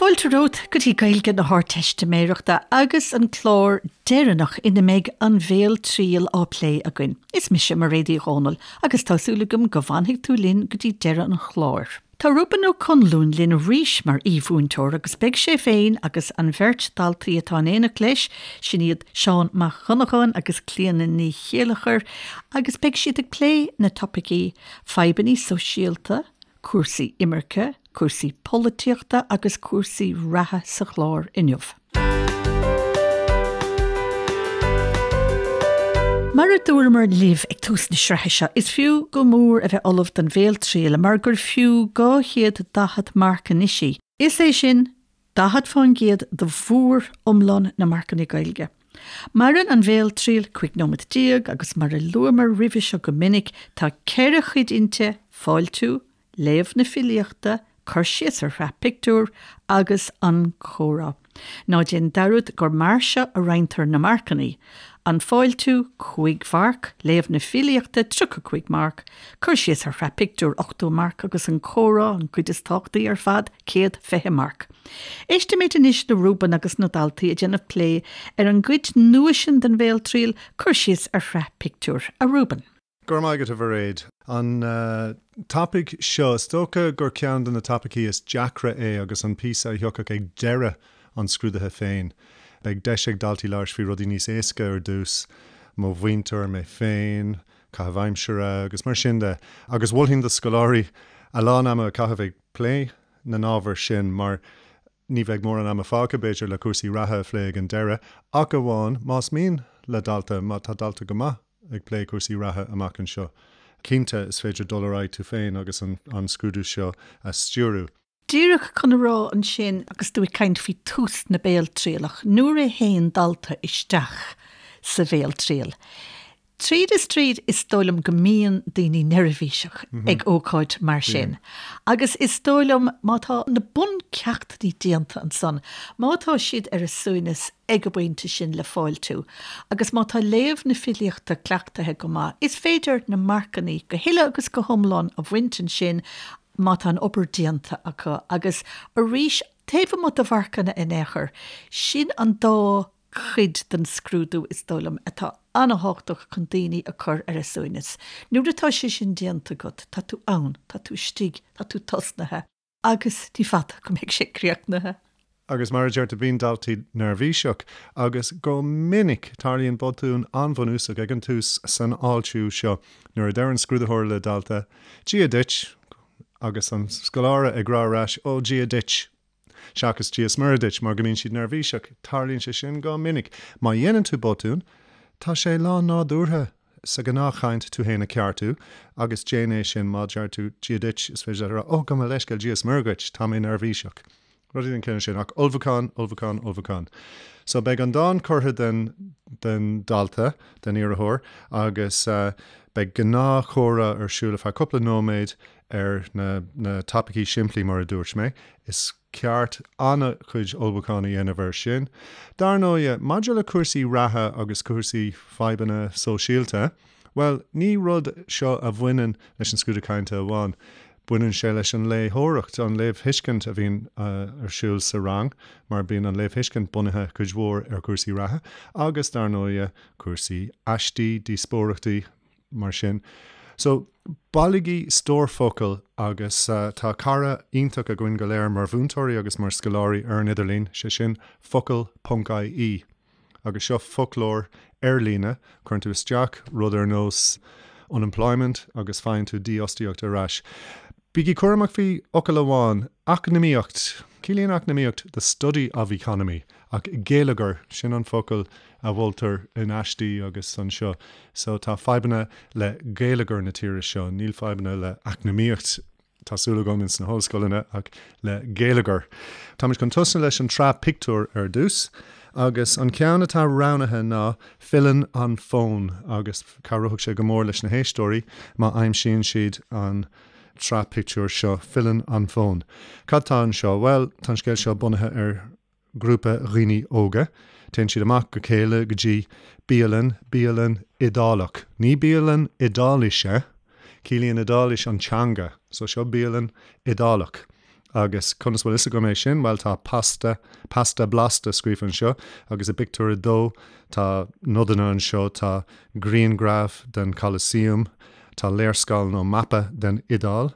Fáilte romhat go dtí Gaeilge na hArdteistiméireachta agus an clár deireanach ina mbeidh an bhéaltriail á plé againn. Is mise Mairéad Uí Dhomhnaill agus tá súil agam go bhfanfaidh tú linn go dtí deireadh an chláir. Tá Reuben Ó Conluain linn arís mar aoi-mhúinteoir agus beidh sé féin agus an bheirt daltaí atá in éineacht leis, sin iad Seán Mac Dhonnacháin agus Clíona Ní Chéilleachair, agus beidh siad ag plé na topaicí, fadhbanna sóisialta, cúrsaí imirce, cúrsaí polaitíochta agus cúrsaí reatha sa chlár inniu. Mar a dúramar libh ag tús na sraithe seo, is fiú go mór a bheith ullamh don bhéaltriail mar gur fiú 240 marc anois í, is é sin, 40% de mhór-iomlán na marcanna Gaeilge. Maireann an bhéaltriail 15 nóiméad agus mar a luamar roimhe seo go minic, tá ceithre chuid inti, fáiltiú, léamh na filíochta, cur síos ar shraith pictiúr agus an comhrá. Ná déan dearúd gur mar seo a roinntear na marcanna, an fáiltiú, 5 mharc, léamh na filíochta, 35 marc, cur síos ar shraith pictiúr, 80 marc agus an comhrá, an chuid is tábhachtaí ar fad, 120 marc. Éistimid anois le Reuben agus na daltaí ag déanamh plé ar an gcuid nua sin den bhéaltriail, cur síos ar shraith pictiúr. A Reuben. Go raibh maith agat, a Mhairéad. An topaic seo, is dócha gur ceann de na topaicí is deacra é agus an píosa a thiocfadh ag deireadh an scrúdaithe féin. Beidh deis ag daltaí labhairt faoi rudaí níos éasca ar dtús, mo mhuintir, mé féin, caitheamh aimsire agus mar sin de. Agus mholfainn do scoláirí a lán ama a chaitheamh ag plé na n-ábhar sin mar Ní bheidh mórán ama fágtha, b'fhéidir, le cúrsaí reatha a phlé ag an deireadh, ach amháin más mian le dalta, má tá dalta go maith ag plé cúrsaí reatha amach anseo. Cinnte, is féidir dul ar aghaidh tú féin agus an scrúdú seo a stiúrú. Díreach chun a rá ansin, agus tú ag caint faoi tús na béaltrialach, nuair a théann dalta isteach sa bhéaltriail, Tríd is tríd, is dóigh liom go mbíonn daoine neirbhíseach ag ócáid mar sin. Agus is dóigh liom má tá na buncheachtanna déanta ansan, má tá siad ar a suaimhneas ag an bpointe sin le fáiltiú, agus má tá léamh na filíochta cleachtaithe go maith, is féidir na marcanna go huile agus go hiomlán a bhaint ansin má tá an obair déanta acu. Agus arís, taobh amuigh de mharcanna in aon chor, sin an dá chuid den scrúdú, is dóigh liom, atá an-thábhachtach chun daoine a chur ar a suaimhneas. Nuair atá sé sin déanta agat, tá tú ann, tá tú istigh, tá tú tosnaithe agus ní fada go mbeidh sé críochnaithe. Agus mar a deir tú, bíonn daltaí neirbhíseach agus go minic tarlaíonn botún an-bhunúsach ag an tús san fháiltiú seo nuair a deir an scrúdaitheoir le dalta, Dia duit! agus an scoláire ag rá ar ais, Ó, Dia duit! Seachas Dia 's Muire duit, mar go mbíonn siad neirbhíseach. Tarlaíonn sé sin go minic. Má dhéanann tú botún, tá sé lán-nádúrtha sa ghnáthchaint tú fhéin a cheartú, agus déan é sin. Má deir tú Dia duit, is féidir leat a rá, Ó, gabh mo leithscéal, Dia 's Muire dhuit, tá mé neirbhíseach. Rudaí den chineál sin. Ach ullmhúchán, ullmhúchán, ullmhúchán. So beidh an dán curtha den, den dalta, den iarrthóir, agus beidh gnáthchomhrá ar siúl ar feadh cúpla nóiméad ar na na topaicí simplí mar a dúirt mé, is ceart an-chuid ullmhúcháin a dhéanamh air sin. Dar ndóighe, maidir le cúrsaí reatha agus cúrsaí fadhbanna sóisialta, bhuel, ní rud seo a bhaineann leis an scrúdú cainte amháin. Baineann sé leis an léitheoireacht, an léamhthuiscint a bhíonn ar siúl sa rang, mar bíonn an léamhthuiscint bunaithe cuid mhór ar chúrsaí reatha agus, dar ndóighe, cúrsaí aistí, díospóireachtaí, mar sin. So, bailigí stór focal agus tá cara iontach againn go léir mar mhúinteoirí agus mar scoláirí ar an idirlíon, sé sin focal ponc ie. Agus seo foclóir ar líne, cuireann tú isteach rud ar nós unemployment agus faigheann tú dífhostaíocht ar ais. Bígí cúramach faoi fhocal amháin, eacnamaíocht. Ciallaíonn eacnamaíocht the study of economy, ach geilleagar, sin an focal a mholtar in aistí agus anseo. So tá fadhbanna le geilleagar na tíre seo, níl fadhbanna le eacnamaíocht, tá súil agam, ins na hollscoileanna, ach le geilleagar. Táimid chun tosnú leis an tsraith pictiúr ar dtús, agus an ceann atá roghnaithe ná Filleann an Fonn, agus cabhróidh sé go mór leis na héisteoirí má aimsíonn siad an tsraith pictiúr seo, Filleann an Fonn. Cad tá anseo? Bhuel, tá an scéal seo bunaithe ar ghrúpa dhaoine óga. Téann siad amach go chéile go dtí bialann, bialann Iodálach. Ní bialann Iodáilise, ciallaíonn Iodáilis an teanga, so seo bialann Iodálach. Agus conas bhfuil fhios agam é sin? Bhuel, tá pasta, pasta blasta scríofa anseo, agus i bpictiúr a dó tá nodanna anseo, tá grianghraf den Colosseum, tá léarscáil nó mapa den Iodáil,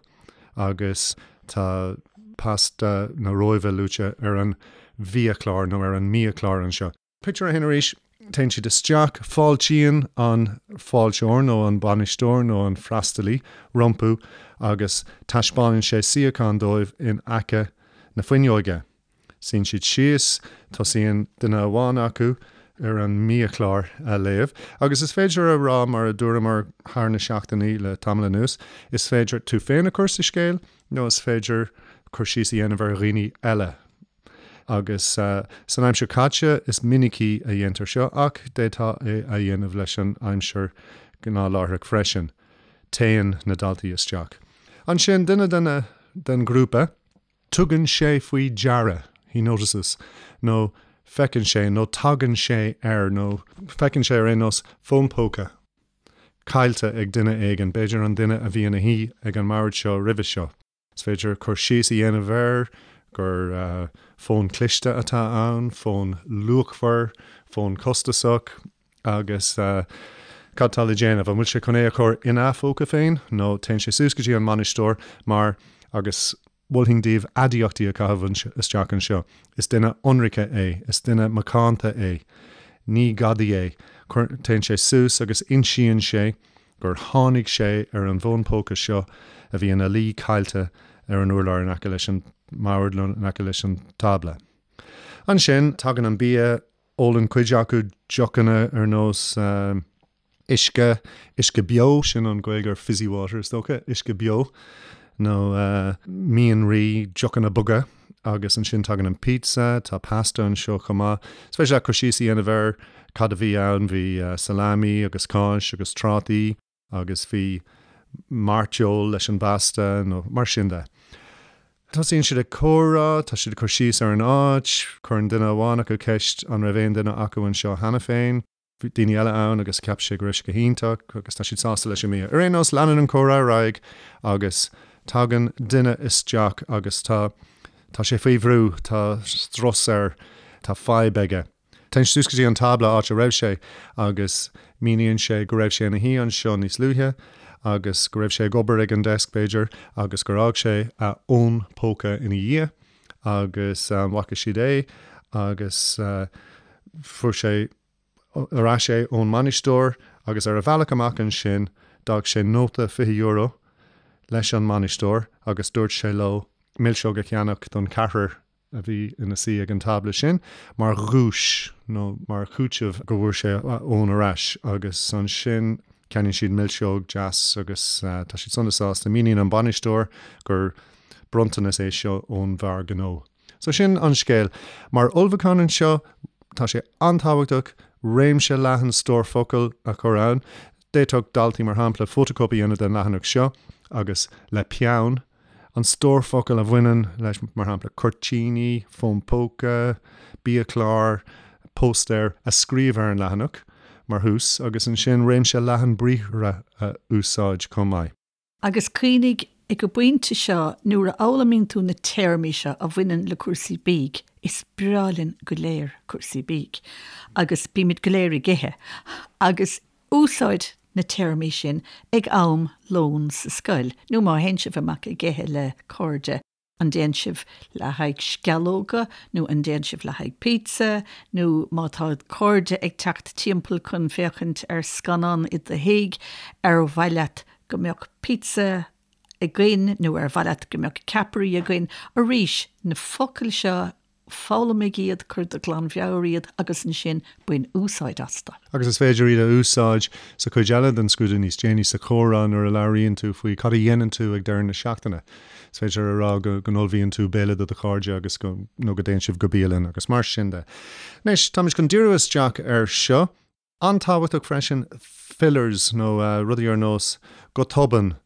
agus tá pasta na Róimhe luaite ar an bhiachlár nó ar an mbiachlár anseo. Pictiúr a haon arís, téann siad isteach, fáiltíonn an fáilteoir nó an bainisteoir nó an freastalaí rompu agus taispeánann sé suíochán dóibh in aice na fuinneoige. Suíonn siad síos, tosaíonn duine amháin acu ar an mbiachlár a léamh agus is féidir a rá, mar a dúramar thar na seachtainí le tamall anuas, is féidir tú féin a chur sa scéal nó is féidir cur síos a dhéanamh ar dhaoine eile. Agus san aimsir chaite is minicí a dhéantar seo, ach d'fhéadfá é a dhéanamh leis an aimsir ghnáthláithreach freisin. Téann na daltaí isteach. Ansin, duine de na den ghrúpa, tugann sé faoi deara, he notices, nó feiceann sé, nó tagann sé ar, nó feiceann sé ar aon nós, fón póca caillte ag duine éigin, b'fhéidir an duine a bhí ina shuí ag an mbord seo roimhe seo. Is féidir cur síos a dhéanamh air gur fón cliste atá ann, fón luachmhar, fón costasach agus cad tá le déanamh? An bhfuil sé chun é a chur ina phóca féin nó téann sé suas go dtí an mbainisteoir mar, agus mholfainn daoibh aidiachtaí a chaitheamh isteach anseo, is duine ionraice é, is duine macánta é, ní gadaí é. Téann sé suas agus insíonn sé gur tháinig sé ar an bhfón póca seo a bhí ina luí caillte ar an urlár in aice leis an mbord nó in aice leis an tábla. Ansin, tagann an bia, ólann cuid acu deochanna ar nós uisce, uisce beo, sin an Ghaeilge ar fizzy water is dócha, uisce beo, nó mianraí, deochanna boga. Agus ansin tagann an pizza, tá pasta anseo chomh maith. Is féidir leat cur síos a dhéanamh ar cad a bhí ann, bhí salami agus cáis agus trátaí agus bhí mairteoil leis an bpasta nó mar sin de. Tosaíonn siad ag comhrá, tá siad ag cur síos ar an áit, cuireann duine amháin acu ceist an raibh aon duine acu anseo cheana féin. Bhí daoine eile ann agus cheap sé go raibh sé go hiontach agus tá siad sásta leis an mbia. Ar aon nós, leanann an comhrá ar aghaidh agus tagann duine isteach agus tá, tá sé faoi bhrú, tá strus air, tá fadhb aige. Téann sé suas go dtí an tábla áit a raibh sé agus míníonn sé go raibh sé ina shuí anseo níos luaithe agus go raibh sé ag obair ag an desk b'fhéidir agus gur fhág sé a fhón póca ina dhiaidh agus an bhfaca siad é agus fuair sé ar ais é ón mbainisteoir agus ar a bhealach amach ansin d'fhág sé nóta €20 leis an mbainisteoir agus dúirt sé leo milseog a cheannach don cheathrar a bhí ina suí ag an tábla sin mar dhuais nó mar chúiteamh go bhfuair sé a fhón ar ais agus ansin ceannaíonn siad milseog deas agus tá siad sona sásta. Míníonn an bainisteoir gur bronntanas é seo ón bhfear gnó. So sin an scéal. Mar ullmhúchán anseo, tá sé an-tábhachtach réimse leathan stór focal a chur ann. D'fhéadfadh daltaí, mar shampla, fótachóip a dhéanamh den leathanach seo agus le peann, an stór focal a bhaineann leis, mar shampla, cuirtíní, fón póca, biachlár, póstaer, a scríobh ar an leathanach mar thús agus ansin réimse leathan briathra a úsáid chomh maith. Agus cuimhnigh, ag an bpointe seo, nuair a fhoghlaimíonn tú na téarmaí seo a bhaineann le cúrsaí bídh, is breá linn go léir cúrsaí bídh, agus bímid go léir ag ithe, agus úsáid na téarmaí sin ag am lóin sa scoil, nó má théann sibh amach ag ithe le cairde. An dtéann sibh le haghaidh sceallóga nó an dtéann sibh le haghaidh pizza nó má tá cairde ag teacht timpeall chun féachaint ar scannán i do thigh, ar mhaith leat go mbeadh pizza againn nó ar mhaith leat go mbeadh ceapairí againn? Arís, na focail seo Foghlaimigh iad, cuir de ghlanmheabhair iad agus ansin bain úsáid astu. Agus is féidir iad a úsáid sa chuid eile den scrúdú níos déanaí, sa chomhrá nuair a labhraíonn tú faoi cad a dhéanann tú ag deireadh na seachtaine. Is féidir a rá go n-ullmhaíonn tú béile do do chairde agus go, nó go dtéann sibh go bialann agus mar sin de. Anois, táimid chun díriú isteach air seo. An-tábhachtach freisin, fillers nó rudaí ar nós go tobann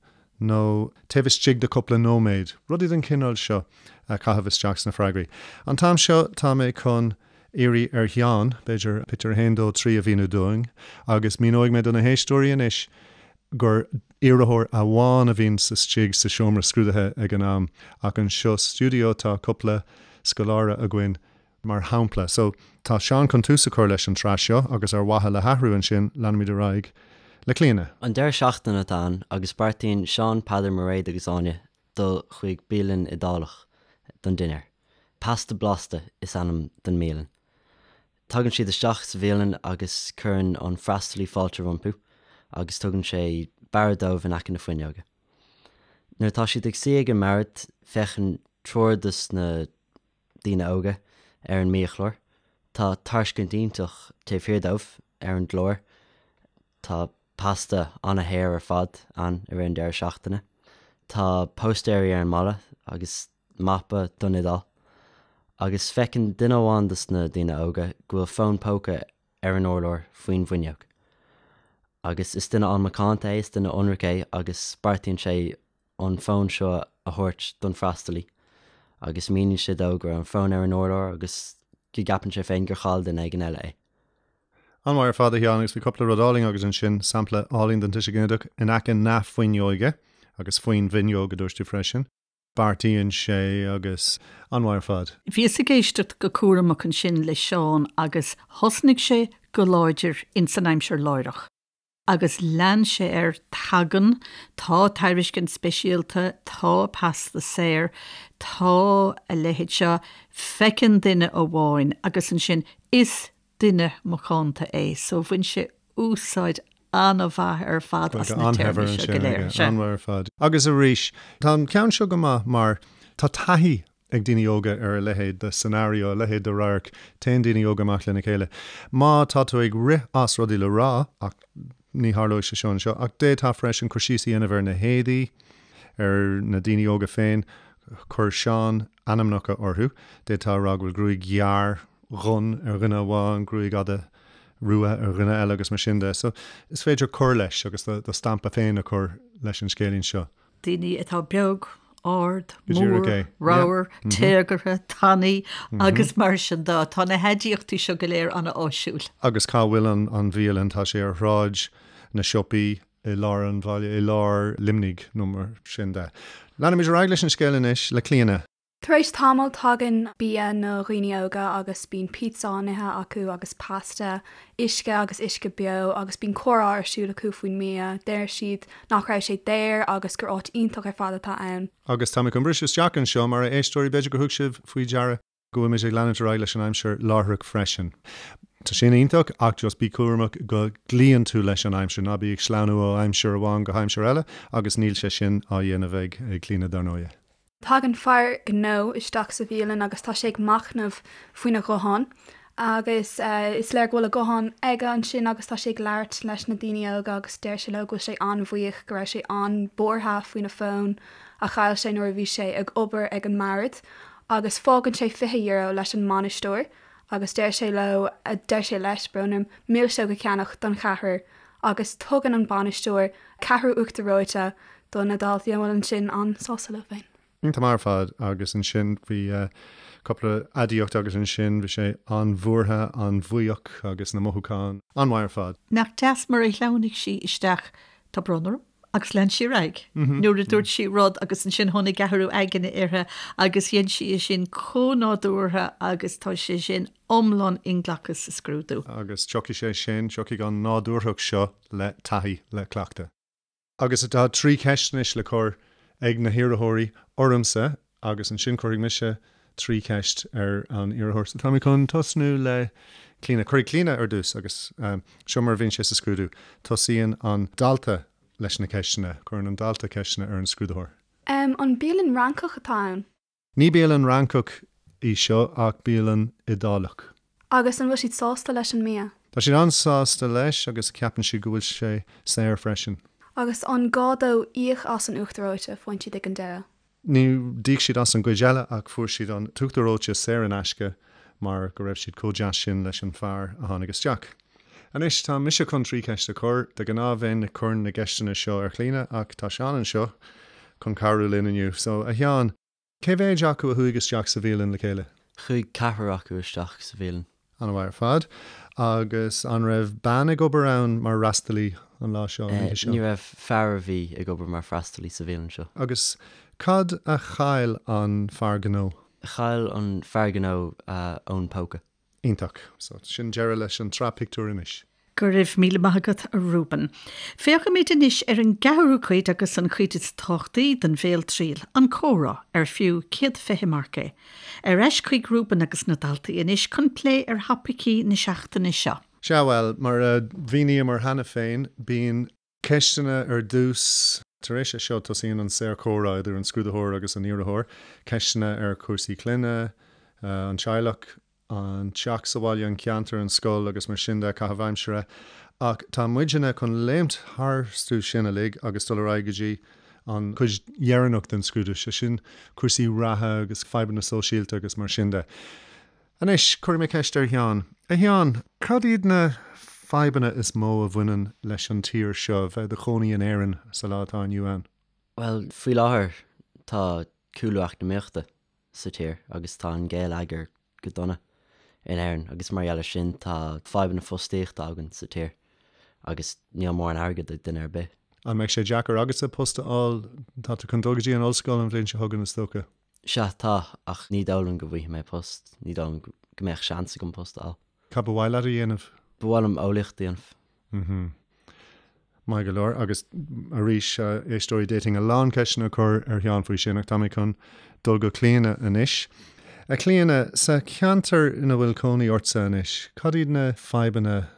nó taobh istigh de cúpla nóiméad, rudaí den chineál seo a chaitheamh isteach sna freagraí. An t-am seo tá mé chun iarraidh ar Sheán, b'fhéidir, pictiúr 1, 2, 3 a mhíniú dúinn agus míneoidh mé do na héisteoirí anois. gur iarrthóir amháin a bhíonn istigh sa seomra scrúdaithe ag an am ach anseo sa stiúideo tá cúpla scoláire againn mar shampla. So, tá Seán chun tús a chur leis an tsraith seo agus ar mhaithe le hathrú ansin leanfaimid ar aghaidh le Clíona. An deireadh seachtaine atá ann agus beartaíonn Seán, Peadar, Mairéad agus Áine dul chuig bialann Iodálach don dinnéar. Pasta Blasta is ainm don mbialann. Tagann siad isteach sa bhialann agus cuireann an freastalaí fáilte rompu agus tugann sé bord dóibh in aice na fuinneoige. Nuair atá siad ag suí ag an mbord féachann triúr dos na daoine óga ar an mbiachlár. Tá tairiscint iontach taobh thiar dóibh ar an gclár. Tá pasta ana-shaor ar fad ann i rith an deireadh seachtaine. Tá póstaeirí ar an mballa agus mapa don Iodáil. Agus feiceann duine amháin dos na daoine óga go bhfuil fón póca ar an urlár faoin bhfuinneog. Agus is duine an-mhacánta é, is duine ionraic é agus beartaíonn sé an fón seo a thabhairt don freastalaí agus míníonn sé dó go raibh an fón ar an urlár agus go gceapann sé féin gur chaill duine éigin eile é. An-mhaith ar fad, a Sheáin, agus bhí cúpla rud álainn agat ansin, sampla álainn den tuiseal ginideach, in aice na fuinneoige agus faoin bhfuinneog, a dúirt tú freisin. Beartaíonn sé agus an-mhaith ar fad. Bhíos ag éisteacht go cúramach ansin le Seán agus thosnaigh sé go láidir ins an aimsir láithreach agus lean sé air, tagann, tá tairiscint speisialta, tá pasta saor, tá a leithéid seo, feiceann duine amháin agus ansin is duine macánta é so bhain sé úsáid an-mhaith ar fad as na téarmaí seo go léir. Sea. An-mhaith ar fad. Agus arís, tá an ceann seo go maith mar tá taithí ag daoine óga ar a leithéid de scenario, a leithéid de radharc, téann daoine óga amach lena chéile. Má tá tú ag rith as rudaí le rá, ach ní tharlóidh sé seo anseo, ach d'fhéadfá freisin cur síos a dhéanamh ar na héadaí, ar na daoine óga féin, chuir Seán ainmneacha orthu, d'fhéadfá a rá go bhfuil gruaig ghearr dhonn ar dhuine amháin, gruaig fhada rua ar dhuine eile agus mar sin de. So, is féidir cur leis agus do stampa féin a chur leis an scéilín seo. Daoine atá beag, ard, mór, ramhar, téagartha, tanaí agus mar sin de. Tá na haidiachtaí seo go léir an-áisiúil. Agus cá bhfuil an bhialann? Tá sé ar Shráid na Siopaí i lár an bhaile, i lár Luimnigh nó mar sin de. Leanfaimid ar aghaidh leis an scéal anois le Clíona. Tar éis tamaill tagann bia na dhaoine óga agus bíonn pizza á n-ithe acu agus pasta, uisce agus uisce beo agus bíonn comhrá ar siúl acu faoin mbia. Deir siad nach raibh sé daor agus gur áit iontach ar fad atá ann. Agus tá mé chun briseadh isteach anseo mar a éisteoirí, b'fhéidir gur thug sibh faoi deara go bhfuil muid ag leanúint ar aghaidh leis an aimsir láithreach freisin. Tá sin iontach ach just bí cúramach go gcloíonn tú leis an aimsir, ná bí ag sleamhnú ó aimsir amháin go haimsir eile agus níl sé sin á dhéanamh ag Clíona dar ndóighe. Tagann fear gnó isteach sa bhialann agus tá sé ag machnamh faoina ghuthán agus is léir go bhfuil a ghuthán aige ansin agus tá sé ag labhairt leis na daoine óga agus deir sé leo go bhfuil sé an-bhuíoch go raibh sé an-bhuartha faoina fón a chaill sé nuair a bhí sé ag obair ag an mbord agus fágann sé €20 leis an mbainisteoir agus deir sé leo, deir sé leis, brón orm, milseog a cheannach don cheathrar agus tugann an bainisteoir ceathrú uachtar reoite do na daltaí a bhfuil ansin an-sásta leo féin. Iontach maith ar fad agus ansin bhí cúpla aidiacht agus ansin bhí sé an-bhuartha, an-bhuíoch agus na mothúcháin an-mhaith ar fad. Nach deas mar a shleamhnaigh sí isteach, tá brón orm, agus lean sí ar aghaidh nuair a dúirt sí rud agus ansin tháinig athrú aigne uirthi agus dhein sí é sin chomh nádúrtha agus tá sé sin iomlán inghlactha sa scrúdú. Agus tiocfaidh sé sin, tiocfaidh an nádúrthacht seo le taithí, le cleachtadh. Agus tá 3 cheist anois le cur ag na hiarrthóirí ormsa agus ansin cuirfidh mise 3 cheist ar an iarrthóir. So tá mé chun tosnú le Clíona. Cuirfidh Clíona ar dtús agus seo mar a bhíonn sé sa scrúdú. Tosaíonn an dalta leis na ceisteanna. Cuireann an dalta ceisteanna ar an scrúdaitheoir. An bialann Fhrancach atá ann? Ní bialann Fhrancach í seo ach bialann Iodálach. Agus an bhfuil siad sásta leis an mbia? Tá siad an-sásta leis agus ceapann siad go bhfuil sé saor freisin. Agus an gá dóibh íoc as an uachtar reoite a faigheann siad ag an deireadh? Ní d'íoc siad as an gcuid eile ach fuair siad an t-uachtar reoite saor in aisce mar go raibh siad chomh deas sin leis an fear a tháinig isteach. Anois tá mise chun 3 cheist a chur. De ghnáth bheinn ag cur na gceisteanna seo ar Chlíona ach tá Seán anseo chun cabhrú linn inniu. So, a Sheáin, cé mhéid acu a chuaigh isteach sa bhialann le chéile? Chuaigh ceathrar acu isteach sa bhialann. An-mhaith ar fad. Agus an raibh bean ag obair ann mar fhreastalaí an lá seo, an oíche seo? Ní raibh, fear a bhí ag obair mar freastalaí sa bhialann seo. Agus cad a chaill an fear gnó? Chaill an fear gnó a fhón póca. Iontach. So, sin deireadh leis an tsraith pictiúr anois. Go raibh míle maith agat, a Reuben. Féachfaimid anois ar an gceathrú cuid agus an chuid is tábhachtaí den bhéaltriail, an comhrá, ar fiú 120 marc é. Ar ais chuig Reuben agus na daltaí anois chun plé ar thopaicí na seachtaine seo. Sea, bhuel, mar a mhíníomar cheana féin, bíonn ceisteanna ar dtús. Tar éis é seo, tosaíonn an saorchomhrá idir an scrúdaitheoir agus an iarrthóir, ceisteanna ar chúrsaí clainne, an teaghlach, an teach sa bhaile, an ceantar, an scoil agus mar sin de, caitheamh aimsire. Ach tá muidne chun léimt tharstu sin uilig agus dul ar aghaidh go dtí an chuid dheireanach den scrúdú, sé sin cúrsaí reatha agus fadhbanna sóisialta agus mar sin de. Anois, cuirfidh mé ceist ar Sheán. A Sheáin, cad iad na fadhbanna is mó a bhaineann leis an tír seo, bheith i do chónaí in Éirinn sa lá atá inniu ann? Bhuel, faoi láthair tá cúlú eacnamaíochta sa tír agus tá an geilleagar go dona in Éirinn agus mar gheall air sin tá fadhbanna fostaíochta againn sa tír agus níl mórán airgid ag duine ar bith. An mbeidh sé deacair agatsa post a fháil? Tá tú chun dul go dtí an ollscoil an bhliain seo chugainn is dócha? Sea, tá, ach ní dóigh liom go bhfaighidh mé post, ní dóigh liom go mbeadh seans agam post a fháil. Cad ba mhaith leat a dhéanamh? Ba mhaith liom eolaíocht a dhéanamh. Mhm. Maith go leor. Agus arís, a éisteoirí, d'fhéadfainn a lán ceisteanna a chur ar Sheán faoi sin, ach tá mé chun dul go Clíona anois. A Chlíona, sa cheantar ina bhfuil cónaí ortsa anois, cad iad na fadhbanna,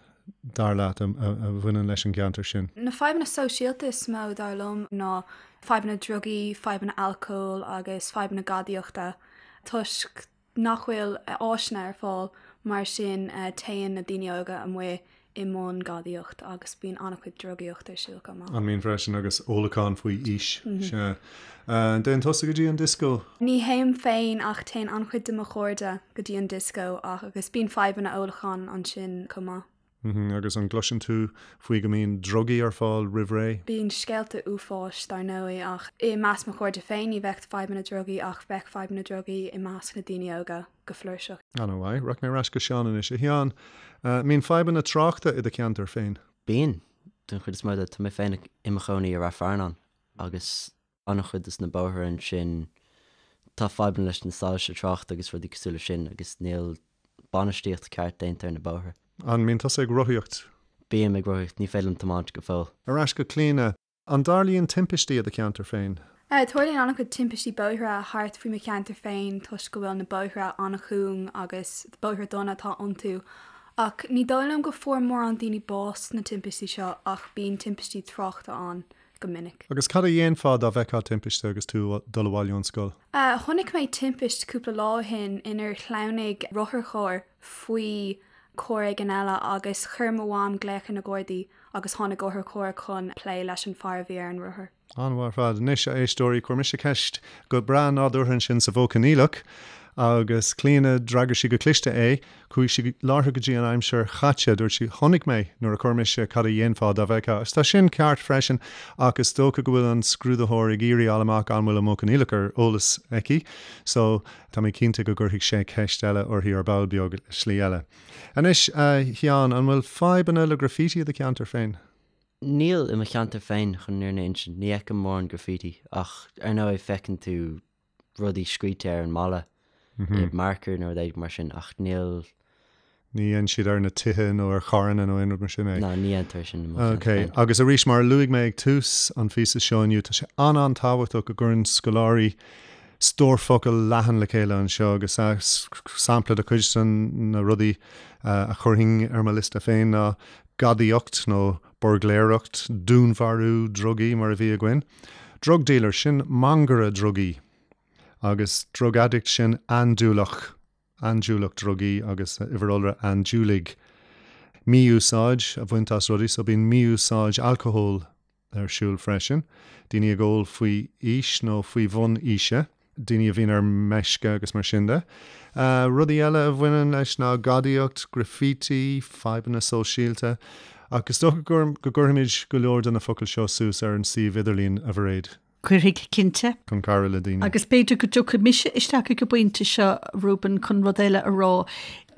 dar leat, a bhaineann leis an gceantar sin? Na fadhbanna sóisialta is mó, dar liom, ná fadhbanna drugaí, fadhbanna alcóil agus fadhbanna gadaíochta, toisc nach bhfuil áiseanna ar fáil, mar sin téann na daoine óga amuigh i mbun gadaíocht agus bíonn an-chuid drugaíocht ar siúl chomh maith. An mbíonn freisin agus ólachán faoi aois, sea. An dtéann tusa go dtí an dioscó? Ní théim féin ach téann an-chuid de mo chairde go dtí an dioscó agus bíonn fadhbanna ólacháin ansin chomh maith. Agus an gcloiseann tú faoi go mbíonn drugaí ar fáil roimh ré? Bíonn scéalta uafáis, dar ndóigh, ach i measc mo chairde féin ní bheadh fadhbanna drugaí ach bheadh fadhbanna drugaí i measc na daoine óga go flúirseach. An-mhaith. Rachaidh mé ar ais go Seán anois. A Sheáin, an mbíonn fadhbanna tráchta i do cheantar féin? Bíonn, den chuid is mó de. Tá mé féin i mo chónaí i Rath Fearnáin agus an-chuid des na bóithre ansin, tá fadhbanna leis na soilse tráchta agus rudaí cosúil leis sin agus níl bainistíocht ceart déanta ar na bóithre. An mbíonn tusa ag rothaíocht? Bím ag rothaíocht, ní féidir liom tiomáint go fóill. Ar ais go Clíona, an dtarlaíonn timpistí i do cheantar féin? Tarlaíonn an-chuid timpistí bóithre thart faoi mo cheantar féin toisc go bhfuil na bóithre an-chúng agus bóithre dona atá iontu. Ach ní dóigh liom go fuair mórán daoine bás sna timpistí seo ach bíonn timpistí tráchta ann. go minic. Agus cad a dhéanfá dá bhfeicfeá timpiste agus tú ag dul abhaile ón scoil? Chonaic mé timpist cúpla lá ó shin inar shleamhnaigh rotharcharr faoi charr éigin eile agus chuir mo mham glaoch ar na Gardaí agus tháinig otharcharr chun plé leis an fear a bhí ar an rothar. An-mhaith ar fad. Anois, a éisteoirí, chuir mise ceist go breá nádúrtha ansin sa mhodh coinníollach agus Clíona, d'fhreagair sí go cliste é. Chuaigh sí láithreach go dtí an aimsir chaite. Dúirt sí, Chonaic mé nuair a chuir mise cad a dhéanfá dá bhfeicfeá. Agus tá sin ceart freisin ach is dócha go bhfuil an scrúdaitheoir ag iarraidh fháil amach an bhfuil an modh coinníollach ar eolas aici. So, tá mé cinnte go gcuirfidh sé ceist eile uirthi ar ball beag, slí eile. Anois, a Sheáin, an bhfuil fadhbanna le graffiti i do cheantar féin? Níl i mo cheantar féin, chun an fhírinne a insint. Ní fheicim mórán graffiti ach ar ndóigh feiceann tú rudaí scríte ar an mballa i marker nó rud éigin mar sin ach níl. Ní dhéanann siad ar na tithe nó ar charranna nó aon rud mar sin é? Ná, ní dhéantar sin i mo cheantar Ok, féin. agus arís mar a luaigh mé ag tús an phíosa seo inniu, tá sé an-an-tábhachtach go gcuireann scoláirí stór focal leathan le chéile anseo agus sampla de chuid de na rudaí a chuirfinn ar mo liosta féin ná gadaíocht nó buirgléireacht, dúnmharú, drugaí mar a bhí againn. Drug dealer, sin mangaire drugaí. Agus drug addict, sin andúileach, andúileach drugaí agus uimhir iolra andúiligh. Mí-úsáid a bhaint as rudaí, so bíonn mí-úsáid alcóil ar siúl freisin. Daoine ag ól faoi aois nó faoi bhun aoise. daoine a bhíonn ar meisce agus mar sin de. Rudaí eile a bhaineann leis ná gadaíocht, graffiti, fadhbanna sóisialta. Ach is dócha go gcuirfimid go leor de na focail seo suas ar an suíomh idirlín, a Mhairéad. Cuirfidh, cinnte. Chun cabhrú le daoine. Agus b'fhéidir go dtiocfaidh mise isteach ag an bpointe seo, Reuben, chun rud eile a rá.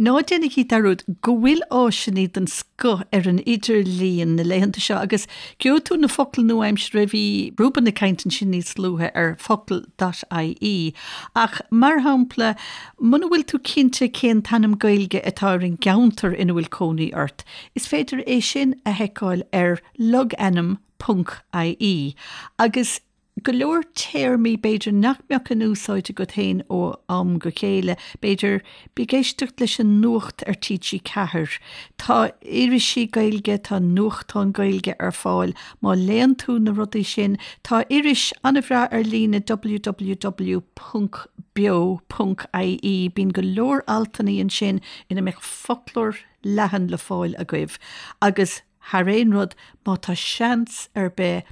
Ná déanaigí dearúd go bhfuil áiseanna den scoth ar an idirlíon na laethanta seo agus gheobhaidh tú na focail nua-aimseartha, bhí Reuben ag caint ansin níos luaithe ar focal dot ie ach, mar shampla, muna bhfuil tú cinnte cén t-ainm Gaeilge atá ar an gceantar ina bhfuil cónaí ort, is féidir é sin a sheiceáil ar logainm ponc ie agus go leor téarmaí b'fhéidir nach mbeadh in úsáid agat féin ó am go chéile, b'fhéidir, bí ag éisteacht leis an nuacht ar TG4, tá irisí Gaeilge, tá nuachtáin Gaeilge ar fáil, má léann tú na rudaí sin, tá iris an-bhreá ar líne www ponc beo ponc ie, bíonn go leor altanna ansin ina mbeadh foclóir leathan le fáil agaibh agus. Thar aon rud, má tá seans ar bith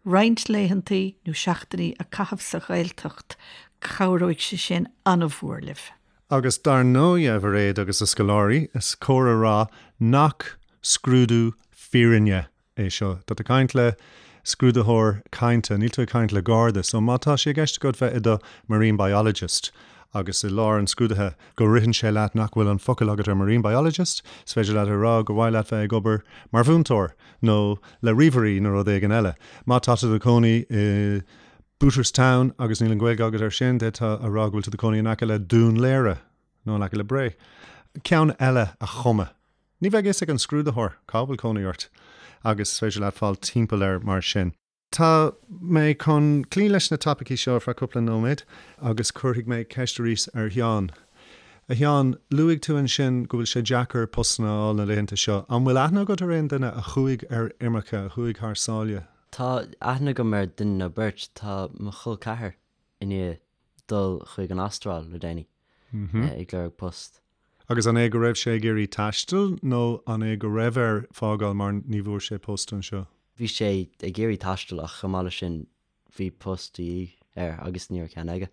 roinnt laethantaí nó seachtainí a caitheamh sa Ghaeltacht, cabhróidh sé sin an-mhór libh. Agus dar ndóigh, a Mhairéad agus a scoláirí, is cóir a rá nach scrúdú fírinne é seo. Tá tú ag caint le scrúdaitheoir cainte, níl tú ag caint le garda. So má tá sé i gceist agat bheith i do marine biologist agus i lár an scrúdaithe go ritheann sé leat nach bhfuil an focal agat ar marine biologist, is féidir leat a rá gur mhaith leat bheith ag obair mar mhúinteoir nó le ríomhairí nó rud éigin eile. Má tá tú i do chónaí i Booterstown agus níl an Ghaeilge agat air sin, d'fhéadfá a rá go bhfuil tú i do chónaí in aice le Dún Laoghaire nó in aice le Bré. Ceann eile a chumadh. Ní bheidh fhios ag an scrúdaitheoir cá bhfuil cónaí ort agus is féidir leat fáil timpeall air mar sin. Tá mé chun cloí leis na topaicí seo ar feadh cúpla nóiméad agus cuirfidh mé ceist arís ar Sheán. A Sheáin, luaigh tú ansin go bhfuil sé deacair postanna a fháil na laethanta seo. An bhfuil aithne agat ar aon duine a chuaigh ar imirce, a chuaigh thar sáile? Tá aithne agam ar duine nó beirt. Tá mo chol ceathar i ndiaidh dul chuig an Astráil le déanaí ag lorg post. Agus an é go raibh sé ag iarraidh taisteal nó an é go raibh air fágáil mar ní bhfuair sé post anseo? Bhí sé ag iarraidh taisteal ach chomh maith leis sin bhí post de dhíth air agus ní raibh ceann aige.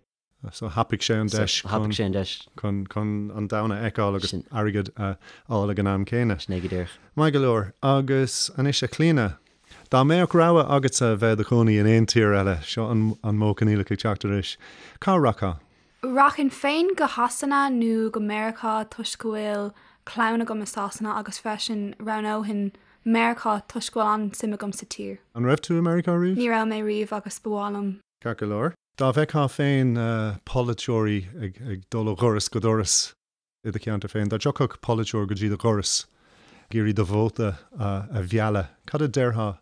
So thapaigh sé an deis So thapaigh sé an deis. chun chun an domhan a fheiceáil agus airgead a fháil ag an am céanna. Sin é go díreach. Maith go leor. Agus anois a Chlíona, dá mbeadh rogha agatsa bheith i do chónaí in aon tír eile, seo an an modh coinníollach ag teacht arís, cá rachfá? Rachainn féin go Shasana nó go Meiriceá toisc go bhfuil clann agam i Sasana agus freisin roghnóinn Meiriceá toisc go bhfuil an-suim agam sa tír. An raibh tú i Meiriceá riamh? Ní raibh mé riamh agus ba mhaith liom. Ceart go leor. Dá bhfeictheá féin polaiteoirí ag dul ó dhoras go doras i do cheantar féin, dá dtiocfadh polaiteoir go dtí do dhoras ag iarraidh do vóta a mhealladh, cad a déarfá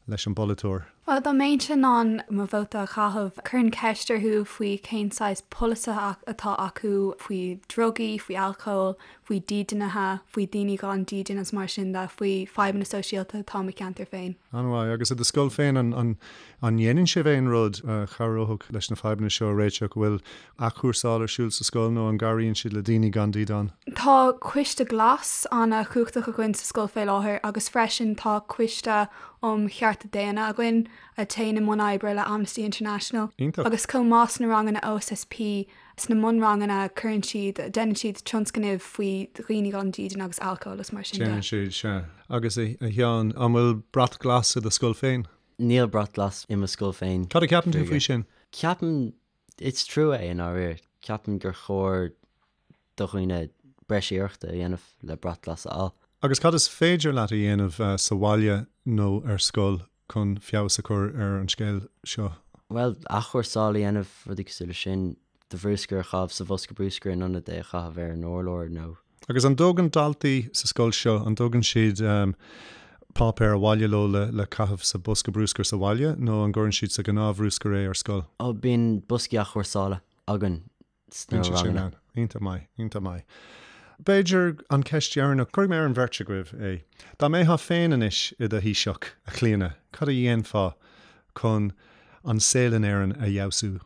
leis an bpolaiteoir? Bhuel, dá mbeinnse in ann mo vóta a chaitheamh, chuirfinn ceist orthu faoi cén saghas polasaithe atá acu faoi drugaí, faoi alcól, faoi dídeanaithe, faoi daoine gan dídean agus mar sin de, faoi fadhbanna sóisialta atá i mo cheantar féin. An-mhaith. Agus i do scoil féin, an ndéanann sibh aon rud a chabhródh leis na fadhbanna seo a réiteach? An bhfuil athchúrsáil ar siúl sa scoil nó an gcabhraíonn siad le daoine gan dídean? Tá Coiste Glas an-chumhachtach againn sa scoil fé láthair agus freisin tá Coiste um Chearta Daonna againn a théann i mbun oibre le Amnesty International. Iontach. Agus chomh maith sna ranganna OSSP, sna mbunranganna cuireann siad, déanann siad tionscnaimh faoi dhaoine gan dídean agus alcól is mar sin de. Déanann siad, sea. Agus a Sheáin, an bhfuil brat glas i do scoil féin? Níl brat glas i mo scoil féin. Cad a cheapann tú faoi sin? Ceapaim Is trua é i ndáiríre. Ceapaim gur chóir do dhaoine breis iarrachta a dhéanamh le brat glas a fháil. Agus cad is féidir leat a dhéanamh sa bhaile nó ar scoil chun feabhas a chur ar an scéal seo? Bhuel, athchúrsáil a dhéanamh, rudaí cosúil leis sin, do bhrúscar a chaitheamh sa bhosca brúscair in ionad é a chaitheamh ar an urlár nó. Agus an dtógann daltaí sa scoil seo, an dtógann siad páipéar abhaile leo le caitheamh sa bosca brúscair sa bhaile nó an gcuireann siad sa ghnáthbhrúscar é ar scoil? Ó, bíonn boscaí athchúrsála againn sna Bíonn siad sin ranganna. ann. Iontach maith, iontach maith. B'fhéidir an cheist dheireanach, cuirfidh mé ar an bheirt agaibh é. Dá mbeifeá féin anois i do Thaoiseach, a Chlíona, cad a dhéanfá chun an saol in Éirinn a fheabhsú?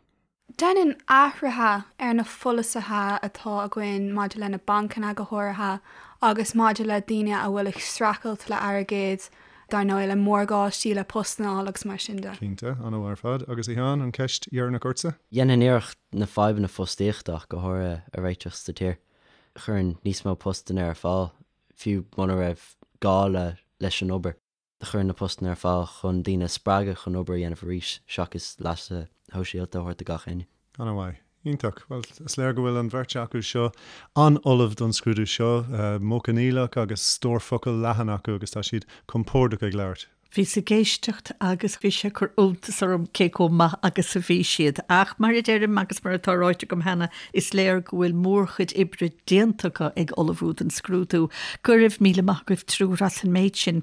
Dhéanfainn athruithe ar na pholasaithe atá againn maidir le na bancanna go háirithe agus maidir le daoine a bhfuil ag streachailt le airgead, dar ndóigh le morgáistí, le postanna a fháil agus mar sin de. Cinnte, an-mhaith ar fad. Agus a Sheáin, an cheist dheireanach ortsa? Dhéanfainn iarracht na fadhbanna fostaíochta ach go háirithe a réiteach sa tír. Chuirfinn níos mó postanna ar fáil, fiú muna raibh gá le leis an obair. Chuir na postanna ar fáil chun daoine a spreagadh chun obair a dhéanamh arís seachas leasa shóisialta a thabhairt do gach éinne. An-mhaith. Iontach. Bhuel, is léir go bhfuil an bheirt acu seo an-ullamh don scrúdú seo, modh coinníollach agus stór focal leathan acu agus tá siad compordach ag labhairt. Bhíos ag éisteacht agus bhí sé ag cur iontas orm cé chomh maith agus a bhí siad. Ach mar a deirim agus mar atá ráite agam cheana, is léir go bhfuil mórchuid oibre déanta acu ag ullmhú don scrúdú. Go raibh míle maith agaibh triúr as an méid sin.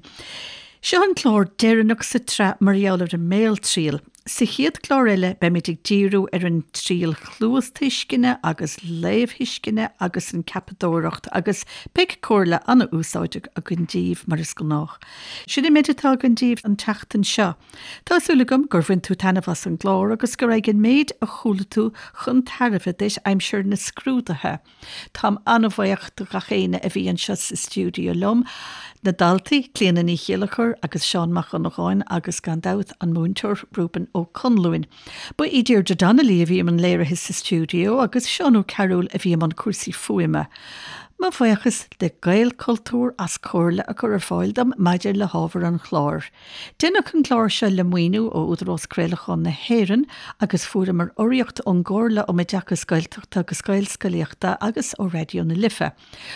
Seo an clár deireanach sa tsraith mar gheall ar an mbéaltriail. Sa chéad chlár eile beimid ag díriú ar an triail chluastuisceana agus léamhthuisceana agus an ceapadóireacht agus beidh comhairle an-úsáideach againn díbh mar is gnách. Sin an méid atá againn díbh an tseachtain seo. Tá súil agam gur bhain tú taitneamh as an gclár agus go raghadh an méid a chuala tú chun tairbhe duit aimsir na scrúduithe. Táim an-bhuíoch do ghach éinne a bhí anseo sa stiúideo liom, na daltaí, Clíona Ní Chéilleachair agus Seán Mac Dhonnagáin agus gan dabht an múinteoir Reuben Ó Conluain. Ba í Deirdre Donnelly a bhí i mbun léirithe sa stiúideo agus Seán Ó Cearúil a bhí i mbun cúrsaí fuaime. Mo bhuíochas le Gaelchultúr as comhairle a chur ar fáil dom maidir le hábhar an chláir. Deineadh an clár seo le maoiniú ó Údarás Craolacháin na hÉireann agus fuaireamar urraíocht ón gComhairle um Oideachas Gaeltachta agus Gaelscolaíochta agus ó Raidió na Life.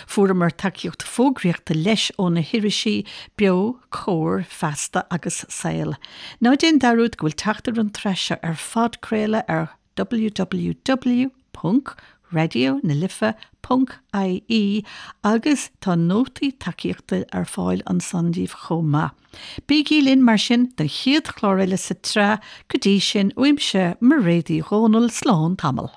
Fuaireamar tacaíocht fógraíochta leis ó na hirisí Beo, Comhar, Feasta agus Saol. Ná déan dearúd go bhfuil teacht ar an tsraith seo ar phodchraoladh ar www.raidionalife.ie agus tá nótaí tacaíochta ar fáil ansan daoibh chomh maith. Bígí linn mar sin don chéad chlár eile sa tsraith, go dtí sin, uaimse, Mairéad Uí Dhomhnaill, slán tamall.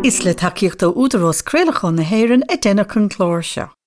Is le tacaíocht ó Údarás Craolacháin na hÉireann a deineadh an clár seo.